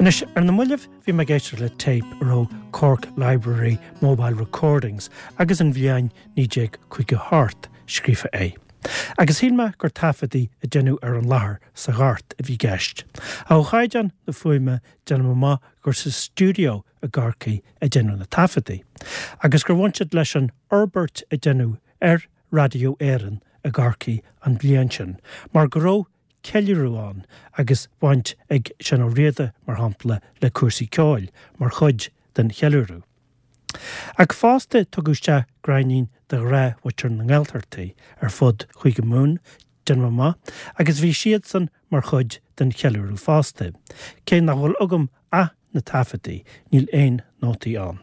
Anois, ar na mallaibh bhí mé ag éisteacht le téip a raibh Cork Library Mobile Recordings agus an bhliain 1958 scríofa air. Agus shíl mé gur taifeadtaí a deineadh ar an láthair sa Ghort a bhí i gceist. Ach ó chaighdeán na fuaime déanaim amach gur sa stiúideo i gCorcaigh a deineadh na taifeadtaí. Agus gur bhain siad leis an fhorbairt a deineadh ar Raidió Éireann i gCorcaigh an bhliain sin, mar go raibh ceiliúradh ann agus baint ag Seán Ó Riada, mar shampla, le cúrsaí ceoil mar chuid den cheiliúradh. Ach fosta tugadh isteach gráinnín de ghnáthmhuintir na nGaeltachtaí ar fud Chúige Mumhan, déanaim amach, agus bhí siadsan mar chuid den cheiliúradh fosta, cé nach bhfuil agam ach na taifeadtaí, níl aon nótaí ann.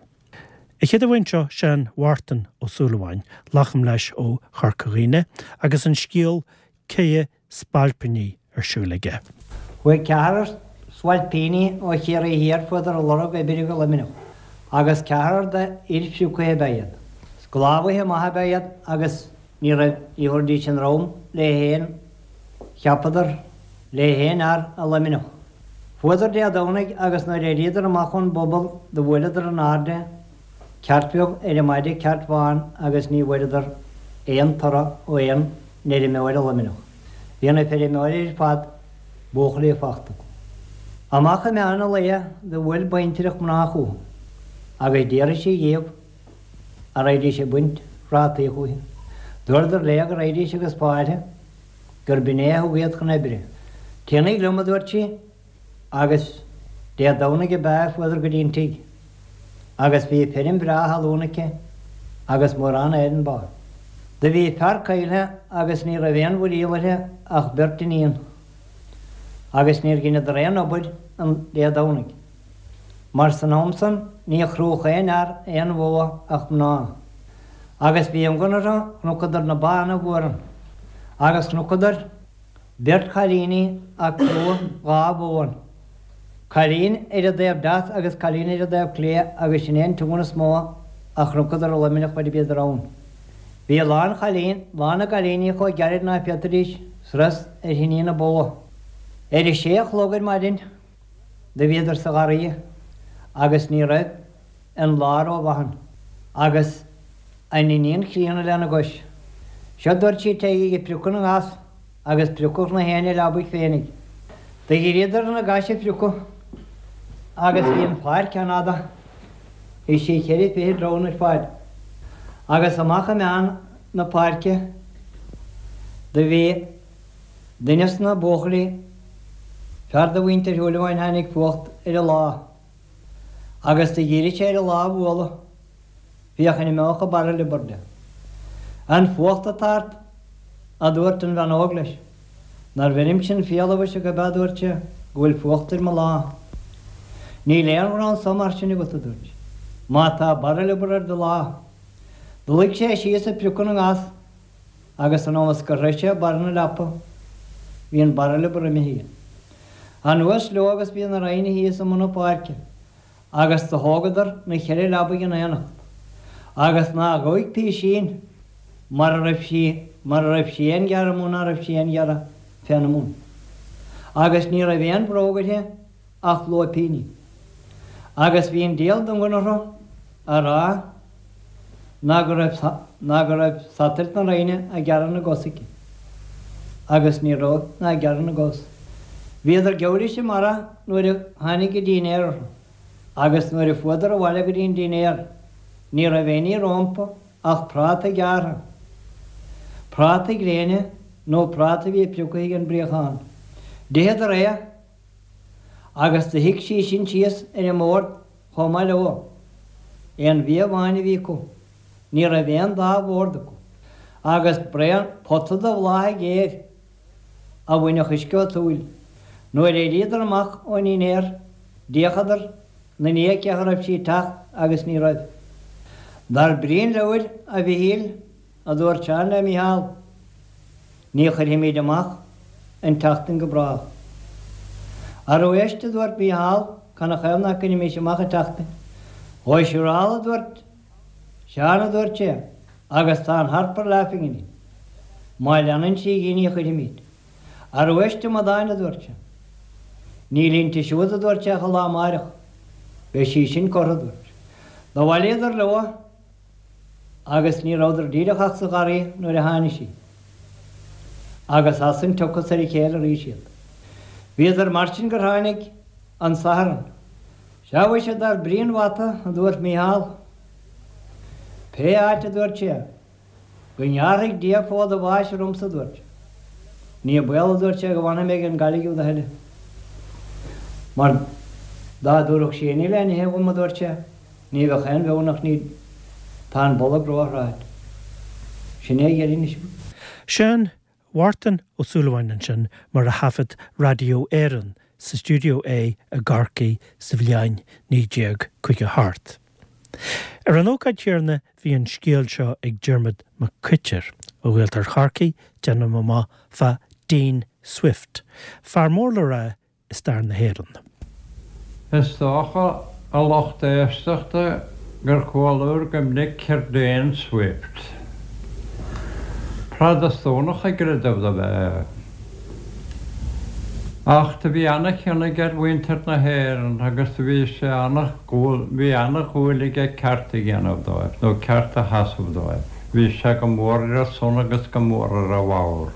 An chéad amháin seo Seán Mhártain Ó Súilleabháin, glacaim leis ó Chorca Dhuibhne, agus an scéal Céidhe Spailpíní ar siúl aige. Chuaigh ceathrar spailpíní ó Chiarraí Thiar fuadar ag lorg oibre go Luimneach, agus ceathrar de fhir phrioctha ab ea iad. Sclábhaithe maithe ab ea iad agus ní raibh, ní thabharfaidís an drom le haon, cheapadar, le haon fhear i Luimneach. Fuadar Dé Domhnaigh agus nuair a éiríodar amach ón bpuball do bhuaileadar in airde ceairt bheag ar an maide ceairt bhán agus ní bhfuaireadar aon toradh ó aon fheirmeoir i Luimneach. Bhí na feirmeoirí ar fad buachaillí fachta acu. Amach i meán an lae do bhuail baintreach mná chucu agus d'fhiafraigh sí dhíobh a raghaidís ag baint prátaí chúithi. Dúradar léi go raghaidís agus fáilte gur b'in é a thug iad chun oibre. Téanaíg liom, a dúirt sí, agus Dé Domhnaigh ab ea a fuadar go dtí an tigh, agus bhí feirm bhreá thalún aici agus mórán éadan ba. Do bhí fear caillthe agus ní raibh aon mhuiríl uirthi ach beirt iníon, agus níor dheineadar aon obair an Dé Domhnaigh, mar san am san ní chrúdh aon fhear aon bhó ach mná. Agus bhí iongan orthu, chonacadar na ba ana-mhór ann, agus chonacadar beirt chailíní a' crúdh dha bhó ann, cailín ar an dtaobh deas agus cailín ar an dtaobh clé agus sin é an t-iongan is mó a chonacadar i Luimneach faid a bhíodar ann. Bhí a lán chailín, lán na gcailíní chomh gairid ná féadfaidís sros ar thinní na bó. Ar a sé a chlog ar maidin do bhíodar sa gharraidhe agus ní raibh an lá ró-mhaith ann agus an iníon chríonna lena gcois. Seo dúirt sí téigí ag priocadh na ngas agus priocadh na héinne leabaidh féinig. Do dhíríodar na gais a phriocadh agus bhí an pháirc an-fhada, bhí sí cheithre fichid troigh ar fad, agus amach i meán na páirce do bhí duine sna buachaillí, fear de mhuintir Shúilleabháin tháinig fuacht ar a lá. Agus do dhírigh sé ar a lá a bhualadh, féachaint an mbeadh a barra liobar de. An fuacht atá ort, aduairt an bhean óg leis. Nár bheirimse an fial amhuise gurb ea, aduairt sé, go bhfuil fuacht ar mo lá. Níl aon ghnó anso mar sin agat, aduairt sí, má tá barra liobar ar do lá. Do luigh sé síos ag priocadh na ngas agus san am is gur shroich sé barra na leapa bhí an barra liobar imithe aige. Anuas leo agus bhí na roinne thíos i mbun na páirce agus do thógadar na cheithre leabaidh in aonacht agus ná ghabhaidh písín mara raibh sí mara raibh sí aon ghearradh amú ná raibh sí aon ghearradh féna mbun agus ní raibh aon bhróg uirthi ach lóipíní. Agus bhí an diabhal d'iongan orthu a rá ná go raibh ná go raibh satailt na Roinne ag gearradh na gcos aici. Agus ní raibh ná ag gearradh na gcos. Bhíodar geall leis an mara nuair a tháinig an dínnéar orthu. Agus nuair a fuadar abhaile go dtí an dínnéar ní raibh aon ní rómpa ach práta gearrtha. Práta gréine nó práta a bhí prioctha ag an bpríochán. D'itheadar é Agus do shuigh sí sin síos ar an mbord chomh maith leo. Aon bhia amháin a bhí acu. Ní raibh aon dá bhord acu. Agus braon pota de bhláth géar a bhainfeadh uisce ó tsúil. Nuair a éiríodar amach ón ndinnéar d'fhéachadar 'na ndiaidh cé acu raibh sí ag teacht agus ní raibh. Dar brí an leabhair, a Mhichíl, a dúirt Seán le Mícheál, ní chuirfimid amach an tseachtain go brách. Arú éist, a dúirt Mícheál, canathaobh ná cuirfimis amach an tseachtain? Ó siúráil, a dúirt Seán, a dúirt sé, agus tá an Harper Laughing in it. Má leanann sí dhi ní chuirfimid. Arú éist, a amadáin, a dúirt sé. Níl inti siúd, a dúirt sé, ach an lá amáireach. Beidh sí sin curtha, a dúirt sé. Do bhailíodar leo agus ní rabhadar díreach ach sa gharraí nuair a tháinig sí. Agus as san tiocfas ar a chéile arís iad. Bhíodar mar sin gur tháinig an Satharn. Sea mhuise dar brí an bhata, a dúirt Mícheál. Pé áit, a dúirt sé, go ngearrfaidh Dia fód a bháis ormsa, a dúirt sé. Ní baol, a dúirt sé, go bhfanfaidh mé ag an gcailligh úd a thuilleadh. Mar dá dtabharfadh sí innill le n-ithe dhom, a dúirt sé, ní bheadh aon bheann ach ní tá an bolg ró-thráite. Sin é a dheireadh anois. Seán Mhártan Ó Súilleabháin ansin mar a thaifead Raidió Éireann sa stiúideo é i gCorcaigh sa bhliain 1958. Ar an ócáid chéanna bhí an scéal seo ag Diarmaid Mac Coitir ó Ghaeltacht Chorcaí, déanaim amach, fá Dean Swift, fear mór le rá i stair na hÉireann. Is dócha, a lucht éisteachta, gur chualabhair go minic ar Dean Swift. Protastúnach i gcreideamh dob ea é. Ach do bhí ana-chion aige ar mhuintir na hÉireann agus do bhí sé ana, bhí ana-dhúil aige ceart a dhéanamh dóibh, nó ceart a sheasamh dóibh. Bhí sé go mór ar a son agus go mór ar a bharr.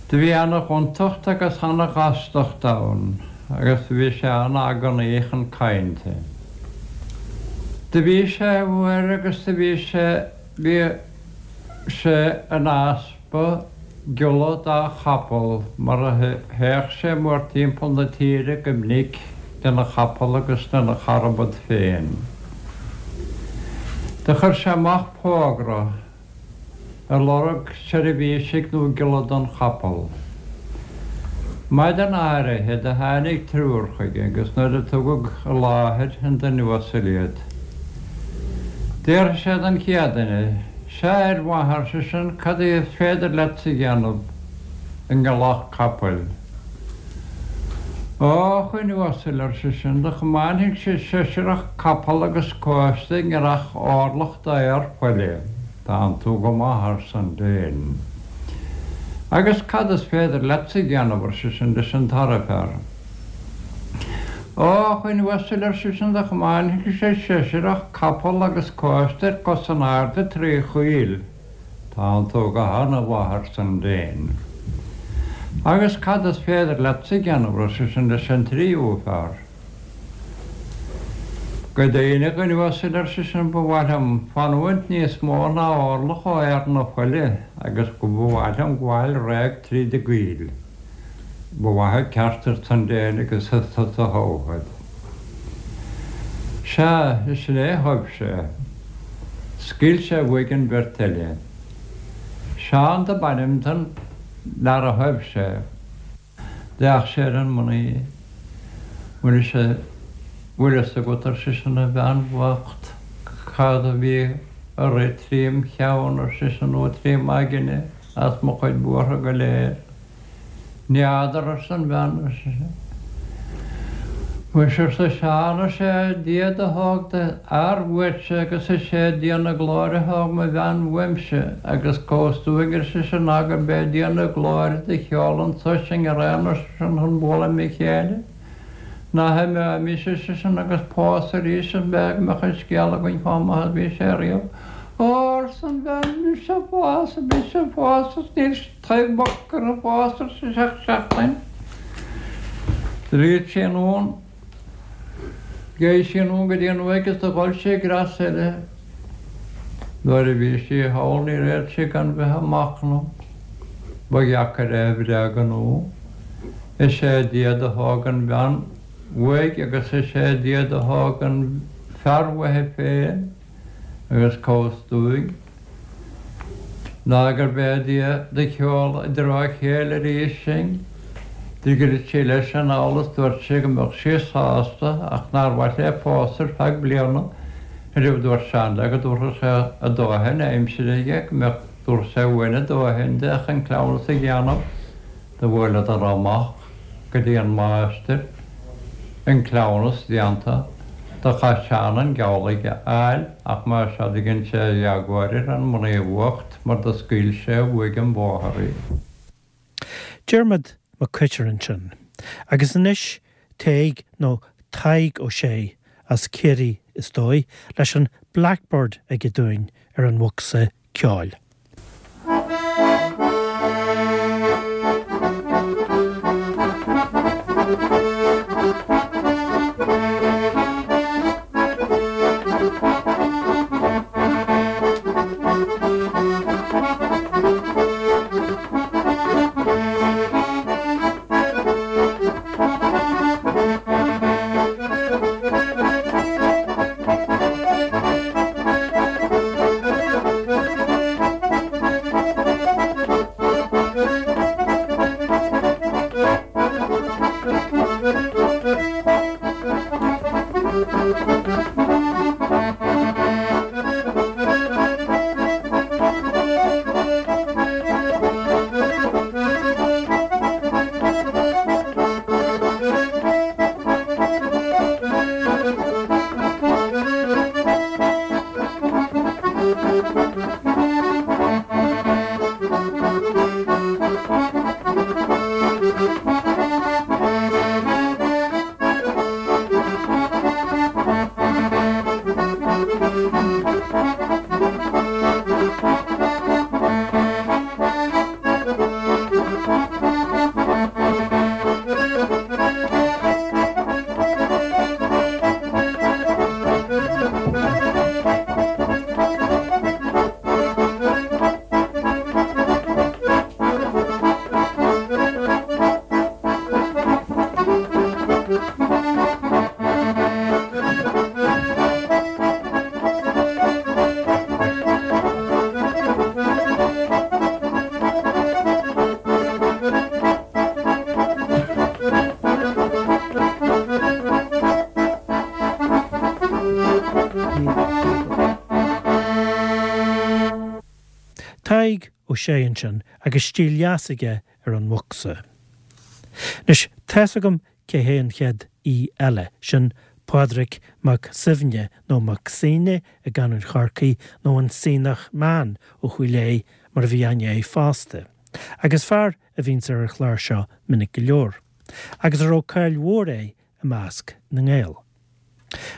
Do bhí ana-ghontacht agus ana-ghastacht ann agus do bhí sé ana-agonaí chun cainnte. Do bhí sé uair agus do bhí sé, bhí sé in easpa giolla dá chapall mar a théadh sé mórthimpeall na tíre go minic lena chapall agus lena charbad féin. Do chuir sé amach fógra. ag lorg seirbhísigh nó giolla don chapall. Maidin áirithe do tháinig triúr chuige agus nuair a tugadh i láthair an duine uasail iad, d'fhiafraigh sé den chéad duine, Sea, a fhir mhaith, ar seisean, cad é is féidir leatsa a dhéanamh i ngiolladh capaill? Ó, a dhuine uasail, ar seisean, do chomáinfidh-se seisearach capall agus cóiste i ngiorrach orlach d'fhéar faille. Tánn tú go maith, arsan Dean. Agus cad is féidir leatsa a dhéanamh, ar seisean leis an dara fear. Ó, a dhuine uasail, ar seisean, do chomáinfidh-se seisearach capall agus cóiste ar cos in airde tré choill. Tánn tú go hana-mhaith, arsan Dean. Agus cad is féidir leatsa a dhéanamh, ar seisean leis an tríú fear. Go deimhin, a dhuine uasail, ar seisean, ba mhaith liom fanúint níos mó ná orlach ó fhéar na faille agus go ba mhaith liom gabháil réidh tríd an gcoill. Ba mhaith an ceart, arsan Dean, agus is tusa a thoghfad. Sea, is sin é a thoibh sé. Scaoil sé uaidh an bheirt eile. Seán dob ainm don fhear a thoibh sé. D'fhéach sé ar an mnaoi. Bhfuil sé, bhfuil fhios agat, ar seisean, a bhean bhocht, cad a bhí a rith trím cheann, ar seisean, nó trím aigne, as mo chuid buartha go léir. N'fheadar, arsa an bhean, ar sise. Muise, arsa Seán, is é Dia do thóg do fhear uaitse agus is é Dia na glóire a thóg mo bhean uaimse agus cá bhfios dúinn, ar seisean, ná gurb é Dia na glóire do sheol anso sinn araon, ar seisean, chun bualadh le chéile. Ná himeoimis, ar seisean, agus pósadh arís an b'ea go mbeadh an scéal againn chomh maith is bhí sé riamh. Ó, arsa an bhean, mise a phósadh, mise a phósadh is níl taobh boc curtha fós, ar sise, ach seachtain. D'fhríot sí anonn. Gheibh sí anonn go dtí an uaigh is do ghoil sí i gcreas eile. Nuair a bhí sí thall níor fhéad sí gan bheith ag machnamh. Ba dheacair é a bhréagnú. Is é Dia do thóg an bhean uaidh agus is é Dia do thóg an fear uaithi féin agus cá bhfios dúinn. Ná gurb é Dia do sheol i dtreo a chéile arís sinn. Do dhruid sí leis anall is dúirt sí go mbeadh sí sásta ach nár mhaith léi pósadh ar feadh bliana. Ariamh dúirt Seán léi go dtabharfadh sé a dóthain aimsire aige, go mbeadh, dtabharfadh sé uain a dóthain di ach an cleamhnas a dhéanamh. Do bhuaileadar amach go dtí an máistir, an cleamhnas déanta. Do chaith Seán an geall aige a fháil ach más ea do dhein sé a éagóir ar an mnaoi bhocht mar do scaoil sé uaidh an bóthar í. Diarmaid Mac Coitir ansin. Agus anois Tadhg nó Tadhg Ó Sé, as Ciarraí is dóigh, leis an Blackbird aige dúinn ar an bhocsa ceoil. Tadhg Ó Sé ansin agus stíl dheas aige ar an bhocsa. Anois, tá's agam cé hé an chéad aoi eile, sin Pádraig Mac Suibhne, nó Mac Suibhne i gcanúint Chorcaí, nó an Sionnach Man ó Chúil Aodha mar a bhí aithne air fosta. Agus fear a bhíonns ar an chlár seo minic go leor. Agus a raibh cáil mhór air i measc na nGael.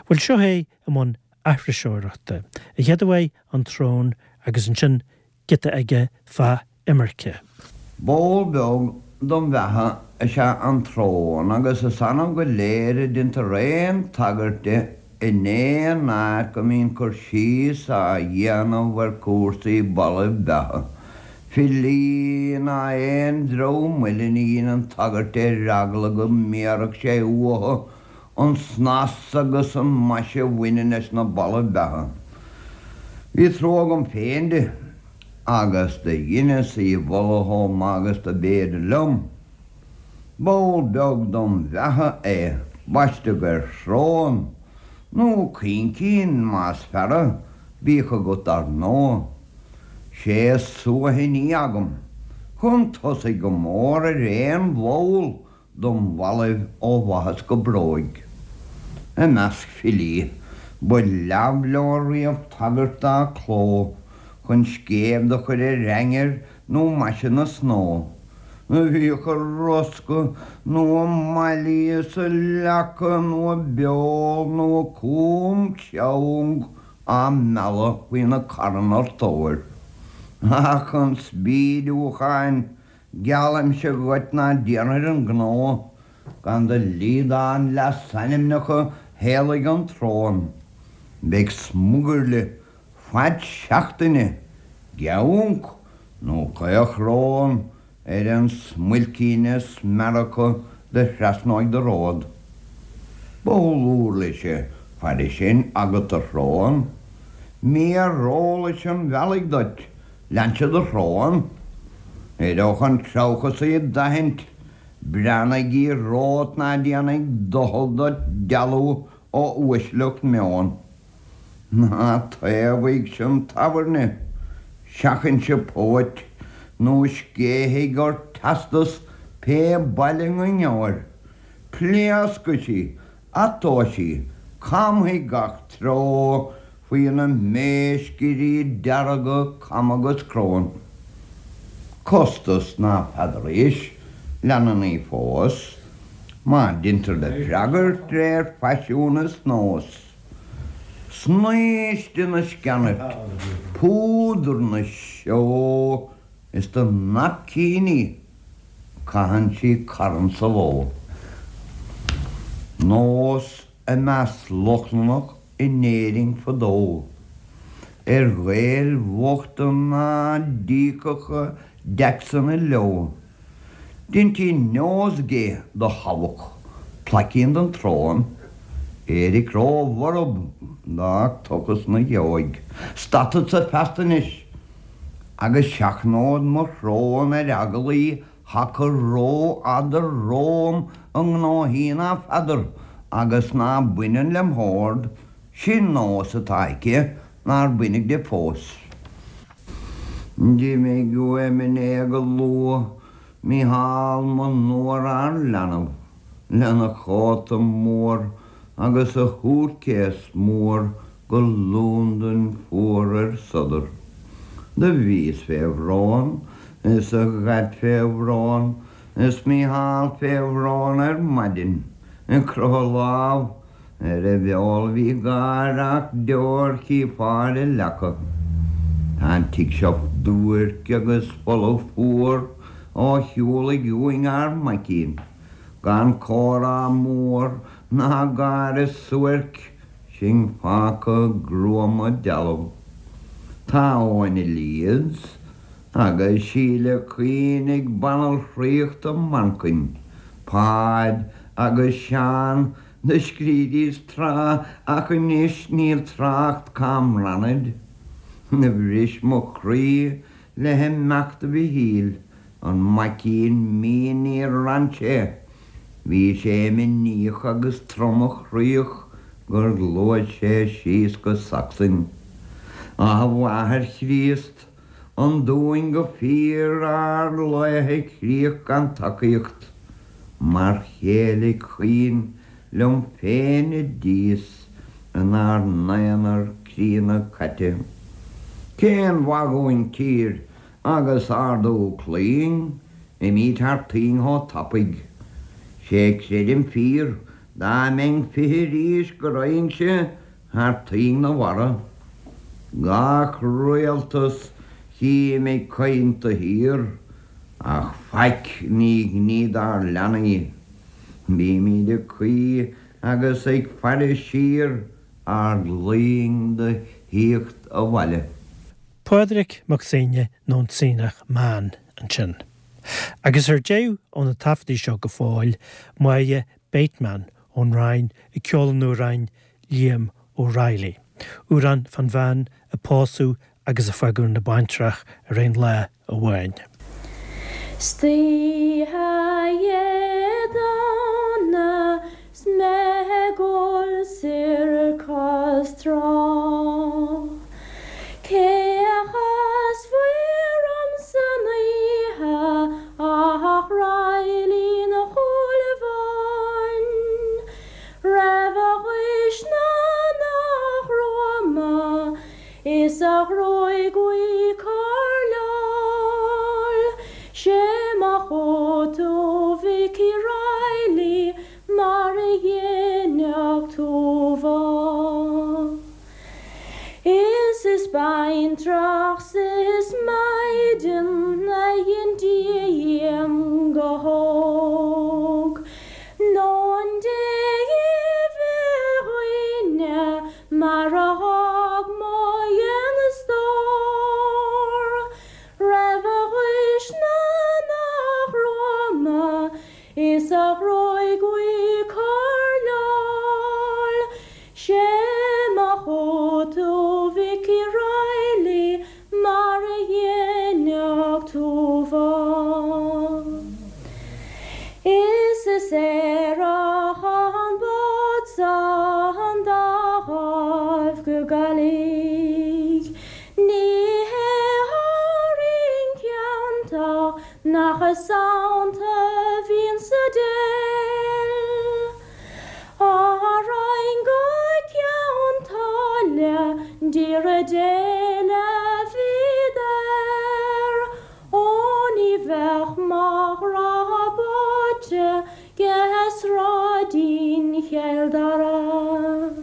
Bhuel seo é i mbun aithriseoireachta, a chéad uaidh An tSrón agus ansin giota aige fá imirce. Ball beag dom bheatha is ea an tsrón agus is annamh go léir a deintear aon tagairt di in aon áit go mbíonn cur síos á dhéanamh ar chúrsaí ballaibh beatha. Filí ná aon dream eile ní dheineann tagairt di ar eagla go mbéarfadh sé uathu an snas agus an maise a bhaineann leis na ballaibh beatha. Bhí trua agam féin di, agus do dheineas í mholadh chomh maith agus do b'fhéidir liom. Ball beag dom bheatha é, baisteadh ar shrón, nó coincín más fearra, bíodh agat dar ndóigh. Sé is suaithní agam, chun tosaigh go mór ar aon bhall dom bhallaibh ó bhaithis go bróig. I measc filí, ba leamh leo riamh tagairt dá cló chun scéimh do chur ar ainnir nó maise na snó. Bhíodh a roscadh nó a mailí is a leaca nó a beol nó a cúm ceong á mealladh faoi na carranna tóir. Ach chun spídiúcháin Geallaimse dhuit ná déanfair an gnó gan do liodán leasainmneacha theaghlaigh an tsrón. Beidh smugairle faid seachtaine, geabhanc nó caochrón ar an smuilcín is meara acu do thrasnóidh do ród. Ball uirlise fairis sin agat a shrón, Mír eolais an bhealaigh duit Lean siad do shrón. Éireodh an treabhchasaí d'aithint. Breathnaigh romhat ná déanfaidh doicheall duit dealú ó uaisleacht meoin. Ná taobhaigh-se an tábhairne, seachain-se póit, nó scéithfidh ort teastas pé baile 'na ngeobhair. Pléascfaidh sí, atóidh sí, camfaidh gach treo faoi na méiscirí dearga cam agus crón. Costas ná feadar aois, leanann í fós. Má deintear do freagairt d'réir faisiún is nós, Snaoiste na sceanairt, púdar na seó Is do naipcíní caitheann sí carn sa ló. Nós i measc Lochlannach in Éirinn fadó, ar Ghaeil bhochta ná d'íocfadh a dtaxanna leo. Deintí nosegay do thabac, plaicín don tsrón, éiric ró-bhorb d'fhág tochas 'na gheoig. Stadfadsa feasta anois agus seachnód mo shrón ar eagal í thacadh ró-fhada romham i ngnóthaí ná feadar agus ná baineann lem shórd, sin nós atá aici nár baineadh di fós. D'imigh uaim inné go luath Mícheál mo nuafhear leanbh, lena chóta mór agus a shútcase mór go Londain fuar ar sodar. Do bhíos fé bhrón is a dhaid fé bhrón is Mícheál fé bhrón ar maidin, ag croitheadh lámh Ar a bheol bhí gáir ach deoir chífeá ar a leaca. Tá an tigh seo duairc agus folamh fuar ó shiúlaigh uainn ár maicín. Gan comhrá mór ná gáire suairc, sinn fágtha gruama dealbh. Tá Eoin i Leeds agus Síle Caoin ag banaltraíocht i Manchain, Páid agus Seán Do scrídís tráth ach anois níl trácht cá mbrannaid. Do bhris mo chroí le himeacht Mhichíl, an maicín mín níor fhan sé. Bhí sé imníoch agus tromchroíoch gur ghluais sé síos go Sacsain. Ach a Mháthair Chríost, an dúinn go fíor ár laethe críoch gan tacaíocht? Mar chéile caoin liom féin i dtíos inár n-aonar críonna caite. Cén mhaith dhúinn tír agus ardú claín, imíd thar toinn chomh tapaidh. 'Sé creidim fíor dá mbeinn 20 arís go raghainnse thar toinn na mhara. Gach rialtas chím ag caint de shíor. Ach faic ní ghní dár leanaí. Bímíd ag caoi agus ag faire siar ár gclaínn do thíocht abhaile. Pádraig Mac Suibhne nó an Suibhneach Meáin ansin. Agus ar deireadh ó na taifeadtaí seo go fóill, Máire Bateman ón Rinn ag ceol an amhráin Liam O'Reilly, amhrán fán bhean a pósadh agus a fágadh ina baintreach ar aon lá amháin. 'Stoíche Dé Domhnaigh 's mé ag gol soir cois trá Cé a chasfaí orm san oíche ach Reilly an Chúil Bháin Raibh a ghaois ná nach gruama Is a ghruaig bhuí coirleáil 'Sé mo chóta Mhicí Reilly mar a dhéanfadh tú bhá. Is is baintreach 's is maighdean a dhein Dia dhíom go hóg Nó an dté bheadh dhaoine Mar a thug mo dhéanastóir Raibh a ghaois ná nach gruama Is a ghruaig bhuí coirleáil 'Sé mo chóta Mhicí Reilly Mar a dhéanfadh tú bhá. Is is aerach an bád san dá ghaibh go Gaillimh. Ní hé Árainn ceanntach nach sannta bhíonn sa déil. Árainn go Ceann tSáile d'iarraidh Dé le bhíodar. Ó ní bheadh mo ghrá báite 'ge sráid. Chill Dara.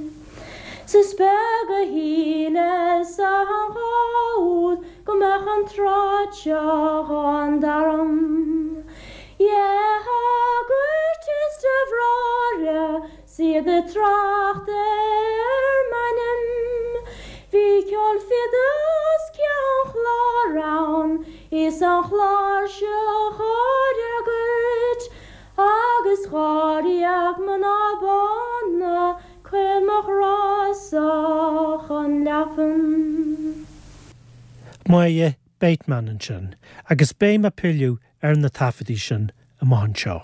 'S is beag a shíleas an lá úd go mbeadh an tráth seo dhá dtaram. Dhe shagairt is de bhráithre 's iad ag trácht ar m'ainm. Bhí ceol fide as Ceann Chláir ann is an chláirseach á fhreagairt agus dháréag mná bána cuir mo ghrá-sa chun leapan. Máire Bateman ansin, agus beidh mé ag pilleadh ar na taifeadtaí sin amach anseo.